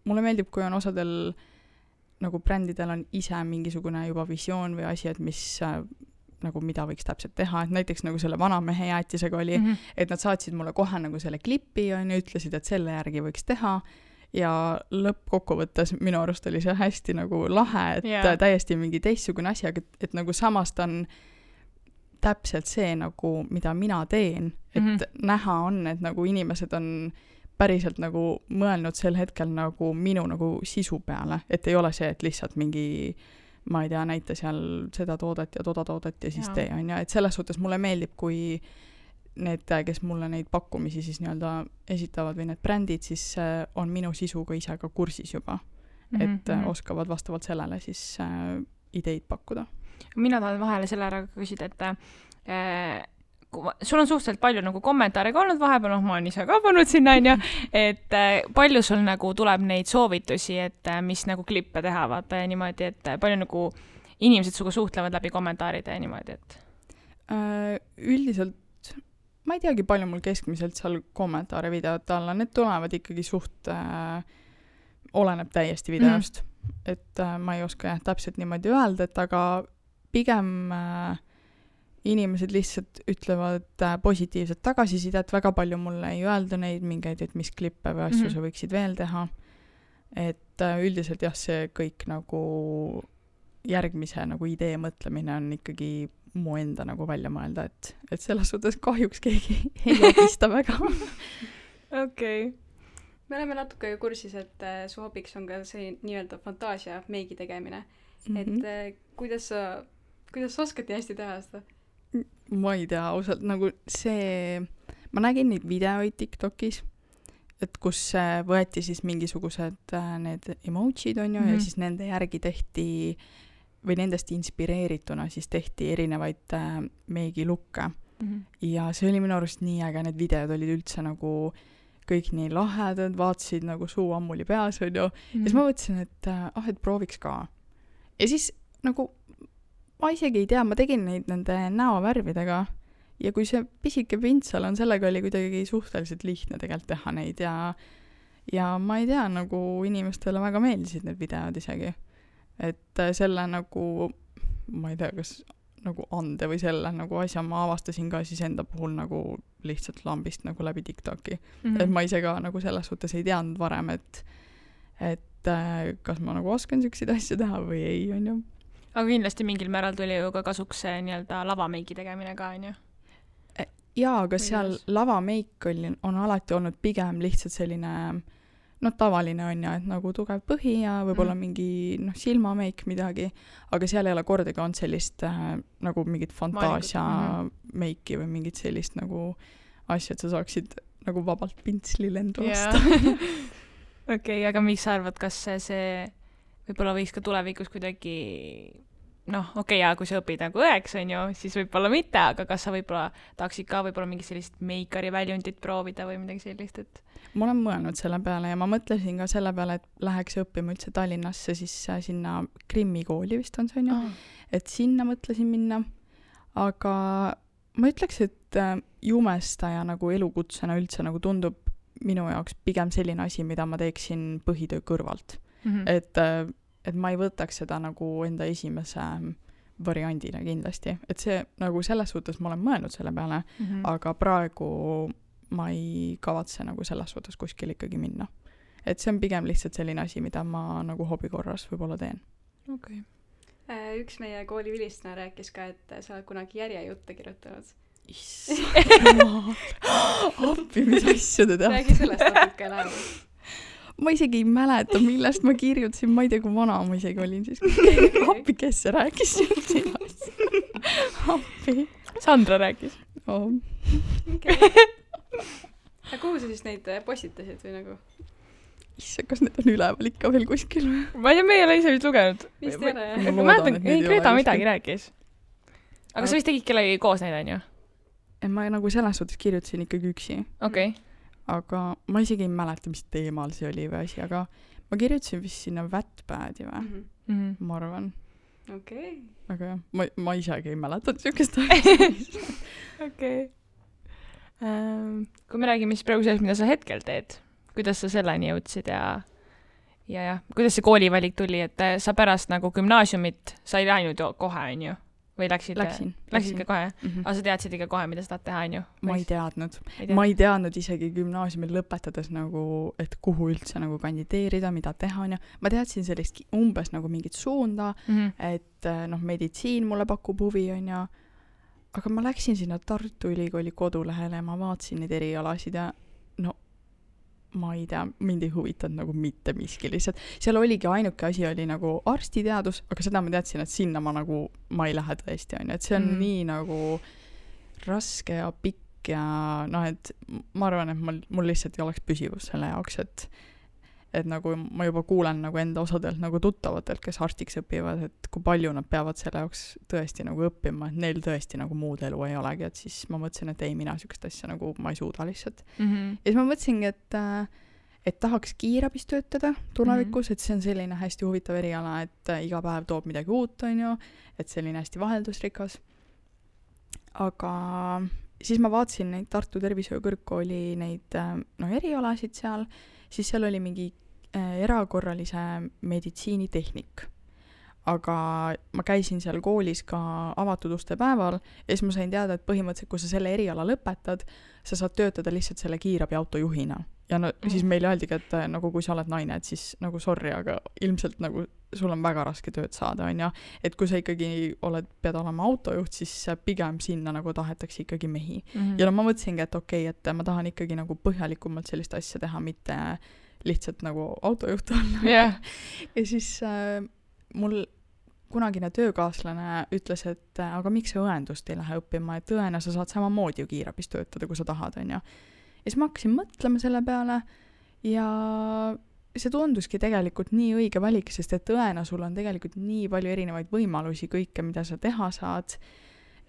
mulle meeldib, kui on osadel nagu brändidel on ise mingisugune juba visioon või asi, et mis nagu mida võiks täpselt teha, et näiteks nagu selle vanamehe jäätisega oli, et nad saatsid mulle kohe nagu selle klipi ja ütlesid, et selle järgi võiks teha ja lõppkokkuvõttes minu arust oli see hästi nagu lahe, et täiesti mingi teistsugune asi, aga et nagu samas ta on täpselt see nagu, mida mina teen, et näha on, et nagu inimesed on päriselt nagu mõelnud sel hetkel nagu minu nagu sisu peale, et ei ole see, et lihtsalt mingi ma ei tea, näita seal seda toodet ja toda toodet ja siis tee, on ja, et selles suhtes mulle meeldib, kui need, kes mulle neid pakkumisi siis nii-öelda esitavad või need brändid, siis on minu sisuga ise ka kursis juba, et oskavad vastavalt sellele siis ideid pakkuda. Mina tahan vahele selle ära küsida, et sul on suhteliselt palju nagu kommentaare ka olnud vahepeal, ma olen ise ka pannud sinna, et palju sul nagu tuleb neid soovitusi, et mis nagu klippe teha, vaata ja niimoodi, et palju nagu inimesed suga suhtlevad läbi kommentaaride ja niimoodi, et üldiselt ma ei teagi, palju mul keskmiselt seal kommentaare videote alla, need tulevad ikkagi suht oleneb täiesti videost, et ma ei oska täpselt niimoodi öelda, et aga pigem inimesed lihtsalt ütlevad positiivset tagasisidet, väga palju mulle ei öelda neid mingeid, et mis klippe või asju sa võiksid veel teha. Et üldiselt jah, see kõik nagu järgmise nagu idee mõtlemine on ikkagi mu enda nagu välja mõelda, et selles suhtes kahjuks keegi ei abista väga. Okei. Me oleme natuke kursis, et su hobiks on ka see nii-öelda fantaasia meigi tegemine. Et kuidas sa oskad nii hästi teha seda? Ma ei tea, ausalt, nagu see, ma nägin neid videoid TikTokis, et kus võeti siis mingisugused need emojid on ju, ja siis nende järgi tehti, või nendest inspireerituna siis tehti erinevaid meigilukke. Ja see oli minu arust nii äge, need videod olid üldse nagu kõik nii lahedad, vaatasid nagu suu ammuli peas on ju, ja siis ma mõtlesin, et prooviks ka. Ja siis nagu ma isegi ei tea, ma tegin neid nende näovärvidega ja kui see pisike pintsel on, sellega oli kuidagi suhteliselt lihtne tegelikult teha neid ja ma ei tea, nagu inimestele väga meeldisid need videod isegi. Et selle nagu, ma ei tea, kas nagu ande või selle nagu asja ma avastasin ka siis enda puhul nagu lihtsalt lambist nagu läbi TikToki. Et ma ise ka nagu selles suhtes ei teadnud varem, et kas ma nagu oskan selliseid asju teha või ei, on ju. Aga kindlasti mingil määral tuli ju ka kasuks see nii-öelda lavameigi tegemine ka, on ju? Jaa, aga seal lavameik on alati olnud pigem lihtsalt selline, tavaline on ju, et nagu tugev põhi ja võib-olla mingi silmameik midagi, aga seal ei ole kordagi on sellist nagu mingit fantaasia meiki või mingit sellist nagu asja, et sa saaksid nagu vabalt pintsli lendu lasta. Okei, aga mis sa arvad, kas see võib-olla võiks ka tulevikus kuidagi, kui sa õpid nagu õeks, on ju, siis võib-olla mitte, aga kas sa võib-olla tahaksid ka võib-olla mingi sellist meikari väljundit proovida või midagi sellist, et ma olen mõelnud selle peale ja ma mõtlesin ka selle peale, et läheks õppima üldse Tallinnasse, siis sinna Krimmi kooli vist on see, on ju, et sinna mõtlesin minna, aga ma ütleks, et jumestaja nagu elukutsena üldse nagu tundub minu jaoks pigem selline asi, mida ma teeksin põhitöö kõrvalt. Et ma ei võtaks seda nagu enda esimese variandina kindlasti. Et see nagu selles suhtes ma olen mõelnud selle peale, aga praegu ma ei kavatse nagu selles suhtes kuskil ikkagi minna. Et see on pigem lihtsalt selline asi, mida ma nagu hobikorras võib-olla teen. Okay. Üks meie kooli vilistana rääkis ka, et sa oled kunagi järjejutte kirjutanud. Appi, mis asju te teate? Räägi sellest natuke läheb. Ma isegi ei mäleta, millest ma kirjutasin, ma ei tea, kui vana ma isegi olin siis. Appi, kes see rääkis sinast? Appi. Sandra rääkis. Ja kuhu sa siis neid postitasid või nagu? Issa, kas need on üleval ikka veel kuskil? Ma ei tea, me ei ole ise vist lugenud. Vist ei ole, jah. Ma mäletan, Greta midagi rääkis. Aga sa vist tegid kellegi koos neid, on ju? Ma nagu selles suhtes kirjutasin ikkagi üksi. Okei. Aga ma isegi ei mäleta, mis teemal see oli või asi, aga ma kirjutasin vist sinna Wattpadi või, ma arvan. Okei. Aga jah, ma isegi ei mäleta niisugust asja. Okei. Kui me räägime siis praegu sellest, mida sa hetkel teed, kuidas sa selleni jõudsid ja kuidas see koolivalik tuli, et sa pärast nagu gümnaasiumit, sa ei läinud ju kohe, on ju? Või läksid ka kohe? Aga sa teadsid ikka kohe, mida sa tahad teha, on ju? Ma ei teadnud isegi gümnaasiumil lõpetades nagu, et kuhu üldse nagu kandideerida, mida teha, on ju. Ma teadsin sellist umbes nagu mingit suunda, et meditsiin mulle pakub huvi, on ju. Aga ma läksin sinna Tartu Ülikooli kodulehele ja ma vaatasin neid erialasid ja ma ei tea, mind ei huvitanud nagu mitte miski lihtsalt. Seal oligi ainuke asi oli nagu arstiteadus, aga seda ma teadsin, et sinna ma ei lähe tõesti, on ju. Et see on nii nagu raske ja pikk ja et ma arvan, et mul lihtsalt ei oleks püsivus selle jaoks, et nagu ma juba kuulen nagu enda osadelt nagu tuttavatelt, kes arstiks õpivad, et kui palju nad peavad selle jaoks tõesti nagu õppima, et neil tõesti nagu muud elu ei olegi, et siis ma mõtlesin, et ei, mina sükest asja nagu ma ei suuda lihtsalt. Ja siis ma mõtlesingi, et tahaks kiirabis töötada tulevikus, et see on selline hästi huvitav eriala, et iga päev toob midagi uut, on ju, et selline hästi vaheldusrikas. Aga siis ma vaatasin neid Tartu Tervishoiukõrgkooli neid erialasid seal, siis seal oli mingi erakorralise meditsiinitehnik. Aga ma käisin seal koolis ka avatud uste päeval ja siis ma sain teada, et põhimõtteliselt, kui sa selle eriala lõpetad, sa saad töötada lihtsalt selle kiirabi autojuhina. Ja siis meil öeldigi, et nagu kui sa oled naine, et siis nagu sorry, aga ilmselt nagu sul on väga raske tööd saada, on ja. Et kui sa ikkagi pead olema autojuht, siis pigem sinna nagu tahetakse ikkagi mehi. Ja ma mõtlesingi, et okei, et ma tahan ikkagi nagu põhjalikumalt sellist asja teha, mitte lihtsalt nagu autojuht olla. Yeah. Ja siis mul kunagine töökaaslane ütles, et aga miks sa õendust ei lähe õppima, et õena sa saad samamoodi ju kiirabis töötada, kui sa tahad, on ja. Ja siis ma hakkasin mõtlema selle peale ja see tunduski tegelikult nii õige valik, sest et õena sul on tegelikult nii palju erinevaid võimalusi kõike, mida sa teha saad,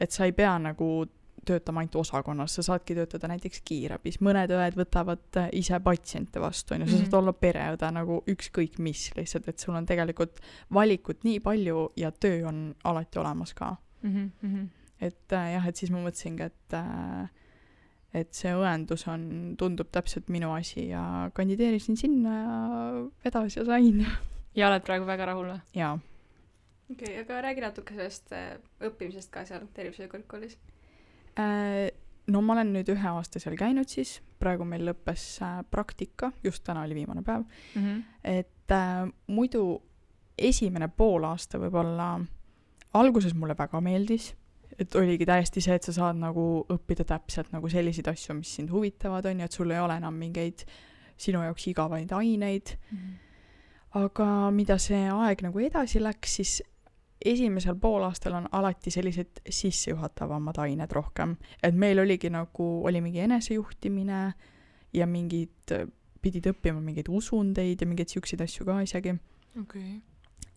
et sa ei pea nagu töötama ainult osakonnas, sa saadki töötada näiteks kiirabis. Mõned õed võtavad ise patsiente vastu, on ju, sa saad olla pereõde nagu ükskõik mis lihtsalt, et sul on tegelikult valikut nii palju ja töö on alati olemas ka. Et jah, et siis ma mõtlesingi, et see õendus tundub täpselt minu asi ja kandideerisin sinna ja vedas ja sain. Ja oled praegu väga rahul või? Jaa. Okei, aga räägi natuke sellest õppimisest ka seal tervishoiukõrgkoolis. No ma olen nüüd 1 aasta seal käinud siis, praegu meil lõppes praktika, just täna oli viimane päev, et muidu esimene pool aasta võib-olla alguses mulle väga meeldis, et oligi täiesti see, et sa saad nagu õppida täpselt nagu selliseid asju, mis sind huvitavad on ja et sul ei ole enam mingeid sinu jaoks igavaid aineid. Aga mida see aeg nagu edasi läks, siis esimesel poolaastal on alati sellised sissejuhatavamad ained rohkem. Et meil oligi nagu, oli mingi enesejuhtimine ja pidid õppima mingeid usundeid ja mingeid siukseid asju ka isegi. Okay.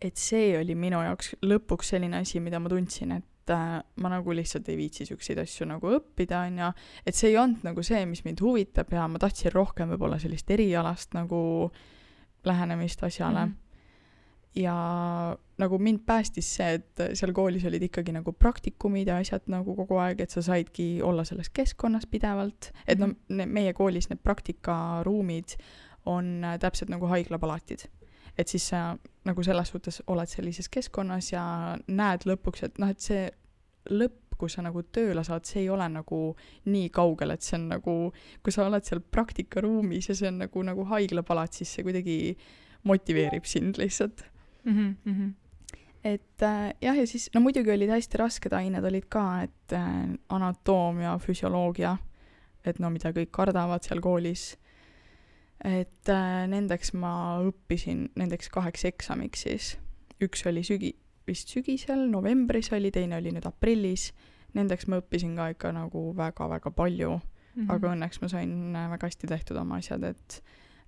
Et see oli minu jaoks lõpuks selline asi, mida ma tundsin, et ma nagu lihtsalt ei viitsi siukseid asju nagu õppida, on ja et see ei olnud nagu see, mis mind huvitab ja ma tahtsin rohkem võib-olla sellist erialast nagu lähenemist asjale. Ja nagu mind päästis see, et seal koolis olid ikkagi nagu praktikumid ja asjad nagu kogu aeg, et sa saidki olla selles keskkonnas pidevalt, et meie koolis need praktikaruumid on täpselt nagu haiglapalatid. Et siis sa nagu selles suhtes oled sellises keskkonnas ja näed lõpuks, et et see lõpp, kui sa nagu tööle saad, see ei ole nagu nii kaugel, et see on nagu, kui sa oled seal praktikaruumis ja see on nagu haiglapalat, siis see kuidagi motiveerib sind lihtsalt. Et jah, ja siis muidugi olid hästi rasked ained olid ka, et anatoomia, füsioloogia, et mida kõik kardavad seal koolis. Et nendeks ma õppisin nendeks 2 eksamiks siis. Üks oli vist sügisel, novembris oli, teine oli nüüd aprillis. Nendeks ma õppisin ka ikka nagu väga-väga palju, aga õnneks ma sain väga hästi tehtud oma asjad,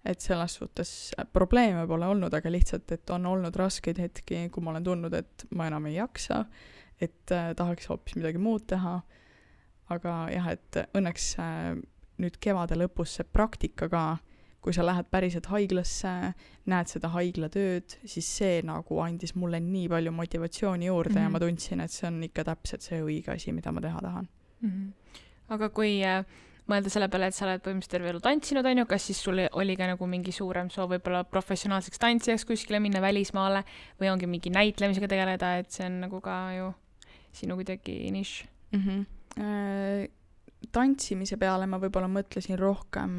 et selles suhtes probleeme pole olnud, aga lihtsalt, et on olnud raskeid hetki, kui ma olen tundnud, et ma enam ei jaksa, et tahaks hoopis midagi muud teha. Aga jah, et õnneks nüüd kevade lõpus see praktika ka, kui sa lähed päriselt haiglasse, näed seda haiglatööd, siis see nagu andis mulle nii palju motivatsiooni juurde ja ma tundsin, et see on ikka täpselt see õige asi, mida ma teha tahan. Aga kui mõelda selle peale, et sa oled põhimõtteliselt terve elu tantsinud, on ju, kas siis sul oli ka nagu mingi suurem soov võib-olla professionaalseks tantsijaks kuskile minna välismaale või ongi mingi näitlemisega tegeleda, et see on nagu ka ju sinu kuidagi nišš? Tantsimise peale ma võib-olla mõtlesin rohkem,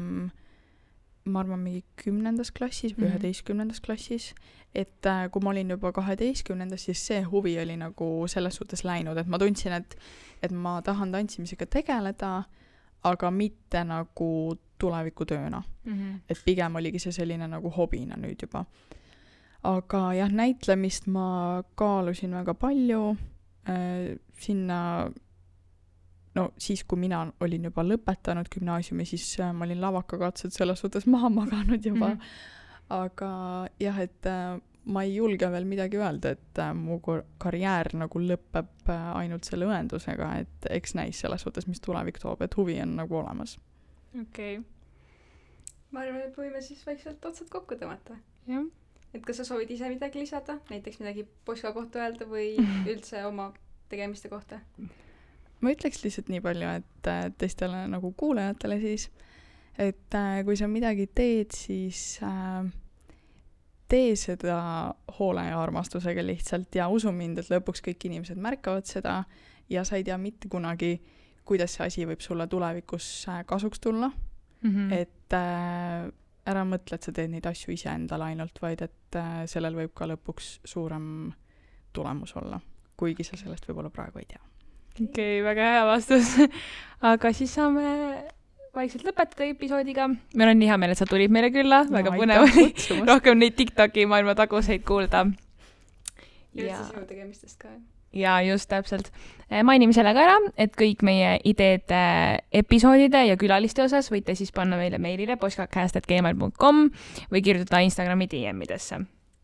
ma arvan, mingi 10. klassis või 11. klassis, et kui ma olin juba 12, siis see huvi oli nagu selles suhtes läinud, et ma tundsin, et ma tahan tantsimisega tegeleda, aga mitte nagu tulevikutööna. Et pigem oligi see selline nagu hobina nüüd juba. Aga jah, näitlemist ma kaalusin väga palju sinna. No siis, kui mina olin juba lõpetanud gümnaasiumi, siis ma olin lavakakatsed selles suhtes maha maganud juba. Aga jah, et ma ei julge veel midagi öelda, et mu karjäär nagu lõpeb ainult selle õendusega, et eks näis selles suhtes, mis tulevik toob, et huvi on nagu olemas. Okei. Ma arvan, et võime siis vaikselt otsad kokku tõmmata. Jah. Et kas sa soovid ise midagi lisada? Näiteks midagi Poska kohta öelda või üldse oma tegemiste kohta? Ma ütleks lihtsalt nii palju, et teistele nagu kuulajatele siis, et kui sa midagi teed, siis tee seda hoole ja armastusega lihtsalt ja usu mind, et lõpuks kõik inimesed märkavad seda ja sa ei tea mitte kunagi, kuidas see asi võib sulle tulevikus kasuks tulla. Et ära mõtle, et sa teed neid asju ise endale ainult, vaid et sellel võib ka lõpuks suurem tulemus olla, kuigi sa sellest võib-olla praegu ei tea. Okei, väga hea vastus. Aga siis saame vaikselt lõpetada episoodiga. Meil on nii hea meel, et sa tulid meile külla. Väga põnev oli rohkem neid TikToki maailma taguseid kuulda. Ja üldse sinu tegemistest ka. Ja just täpselt. Mainime selle ka ära, et kõik meie ideed episoodide ja külaliste osas võite siis panna meile meilile poskacast@gmail.com või kirjutada Instagrami DM-idesse.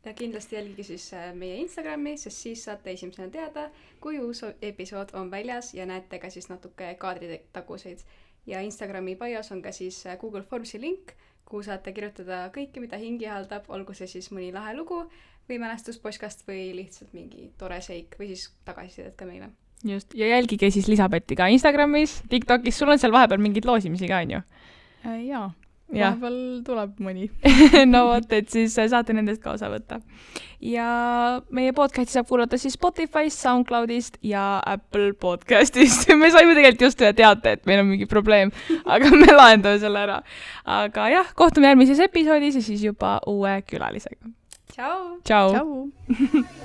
Ja kindlasti jälgige siis meie Instagrami, sest siis saate esimesena teada, kui uus episood on väljas ja näete ka siis natuke kaadritaguseid. Ja Instagrami bios on ka siis Google Formsi link, kuhu saate kirjutada kõike, mida hingi haldab, olgu see siis mõni lahe lugu või mälestus Poskast või lihtsalt mingi tore seik või siis tagasisidet ka meile. Just, ja jälgige siis Lisabetti ka Instagramis, TikTokis, sul on seal vahepeal mingid loosimisi ka, on ju? Jaa. Vahepeal tuleb mõni. No vot, et siis saate nendest ka osa võtta. Ja meie podcasti saab kuulata siis Spotify'st, SoundCloud'ist ja Apple podcast'ist. Me saime tegelikult just ühe teate, et meil on mingi probleem, aga me lahendame selle ära. Aga jah, kohtume järgmises episoodis ja siis juba uue külalisega. Ciao! Ciao! Ciao!